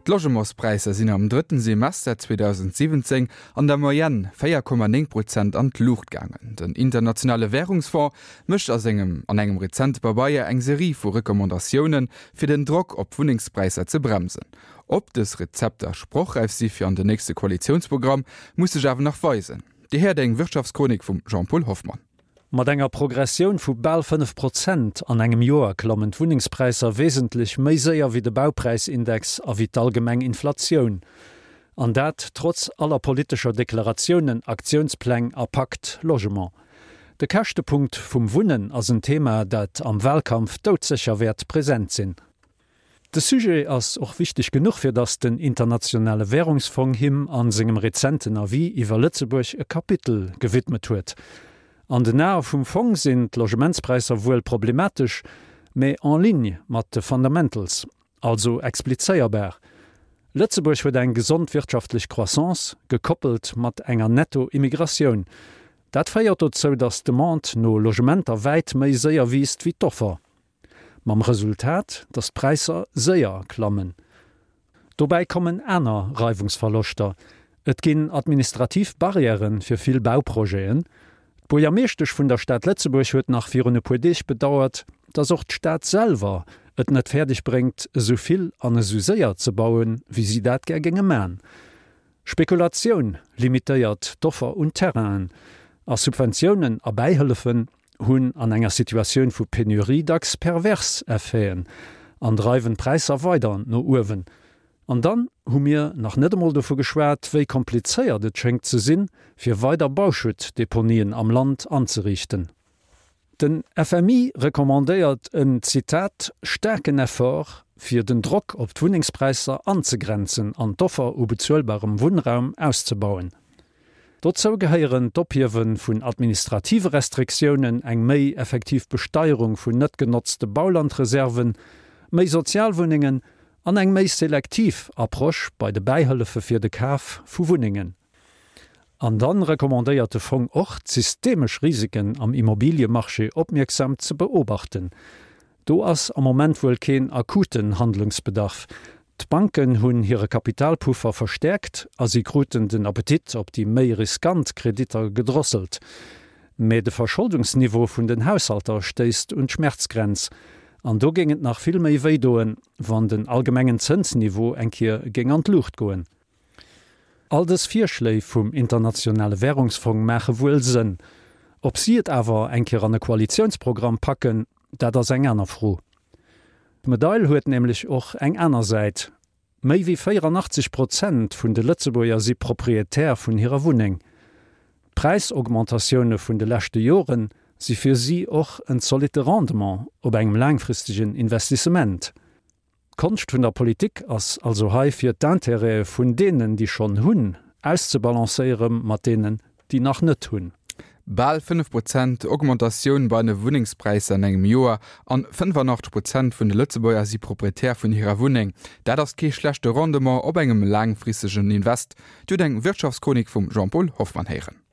D'Logementspräisser sinn am drëtten Semester 2017 an der Moyenne 4,9 Prozent an d'Luucht gaangen. Den Internationale Wärungsfonds mécht a sengem an engem rezente Pabeier eng Serie vu Recommandatiounen, fir den Drock op d'Wunnengspräisser ze bremsen. Ob dës Rezepter sprochräif si fir an den nächste Koalitiounsprogramm, muss sech awer nach weisen. Dir héiert eng Wirtschaftschronik vum Jean-Paul Hoffmann. Mat enger Progressioun vu bal 5 Prozent an engem Joer klammen d'Wunnengspräisser wesentlech méi séier wéi de Baupräisindex a wéi d'allgemeng Inflatioun. An dat trotz aller politescher Deklaratiounen, Aktiounspläng a Pacte Logement. De Käschtepunkt vum Wunnen ass en Thema, dat am Walkampf doudsécher wäert present sinn. De Sujet ass och wichteg genuch, fir datt den Internationale Währungsfong him a sengem rezenten Avis iwwer Lëtzebuerg e Kapitel gewidmet huet. An den Ae vum Fong sinn d'Logementspräisser wuel problematesch, mä en ligne mat de Fundamentals, also explizéierbar. Lëtzebuerg huet eng gesond wirtschaftlech Croissance, gekoppelt mat enger Netto-Immigratioun. Dat féiert dozou, datt d'Demande no Logementer wäit méi séier wiisst wéi d'Offer. Mam Resultat, datt d'Präisser séier klammen. Dobäi kommen aner Reiwungsverloschter, Et ginn administrativ Barrièrë fir vill Bauprojeten. D'Buergermeeschtesch vun der Stad Lëtzebuerg huet nach virun e puer Deeg bedauert, datt och d'Stad selwer et net fäerdeg bréngt, esou vill an esou séier ze bauen, wéi si dat gär géinge man. Spekulatioun limitéiert d'Offer un Terrainen, a Subventiounen a Bäihëllefen hunn an enger Situatioun vu Penurie dacks pervers Effeten an dreiwen d'Präisser weider no uewen. An dann hu mir nach net emol dovu geschwat, wéi komplizéiert et schéngt ze sinn, fir weider Bauschuttdeponien am Land anzeriichten. Den FMI recommandéiert en, Zitat, staarken Effort, fir den Drock op d'Wunnengspräisser anzegrenzen an d'Offer u bezuelbarem Wunnraum auszebauen. Dozou gehéieren d'Ophiewe vun administrative Restriktiounen, eng méi effektiv Besteierung vun net genotzte Baulandreserven, méi Sozialwunnengen an eng méi selektiv Approche bei de Bäihëllefe fir de Kaf vu Wunnengen. An dann recommandéiert de Fong och, d'systemesch Risiken am Immobiliemarché opmierksam ze beobachten. Do ass am Moment wuel keen akuten Handlungsbedarf. D'Banken hunn hire Kapitalpuffer verstäerkt a si kruten den Appetit op déi méi riskant Kreditter gedrosselt. Mä de Verscholdungsniveau vun den Haushalter stéisst un d'Schmerzgrenz. An do géing et nach vill méi wéi doen, wann den allgemengen Zënsniveau eng Kier géing an d'Luucht goen. All dës Virschléi vum Internationale Währungsfong maache wuel Sënn. Ob si et awer eng Kéier an e Koalitiounsprogramm packen, dat ass eng aner Fro. D'Medail huet nämlech och eng aner Säit, Méi wéi 84 Prozent vun de Lëtzebuerger si Proprietär vun hirer Wunneng. D'Präisaugmentatioune vun de leschte Jore si fir si och en zolitte Rendement op engem laangfristegen Investissement. D'Konscht vun der Politik ass also hei fir d'Intérêtë vun deenen, déi schonn hunn, auszebalancéiere mat deenen, déi nach net hunn. Bal 5 Prozent Augmentatioun bei de Wunnengspräisser an engem Joer an 85 Prozent vun de Lëtzebuerger si Proprietär vun hirer Wunneng. Dat ass kee schlechte Rendement op engem laangfristegen Invest. Dir hutt eng Wirtschaftschronik vum Jean-Paul Hoffmann héieren.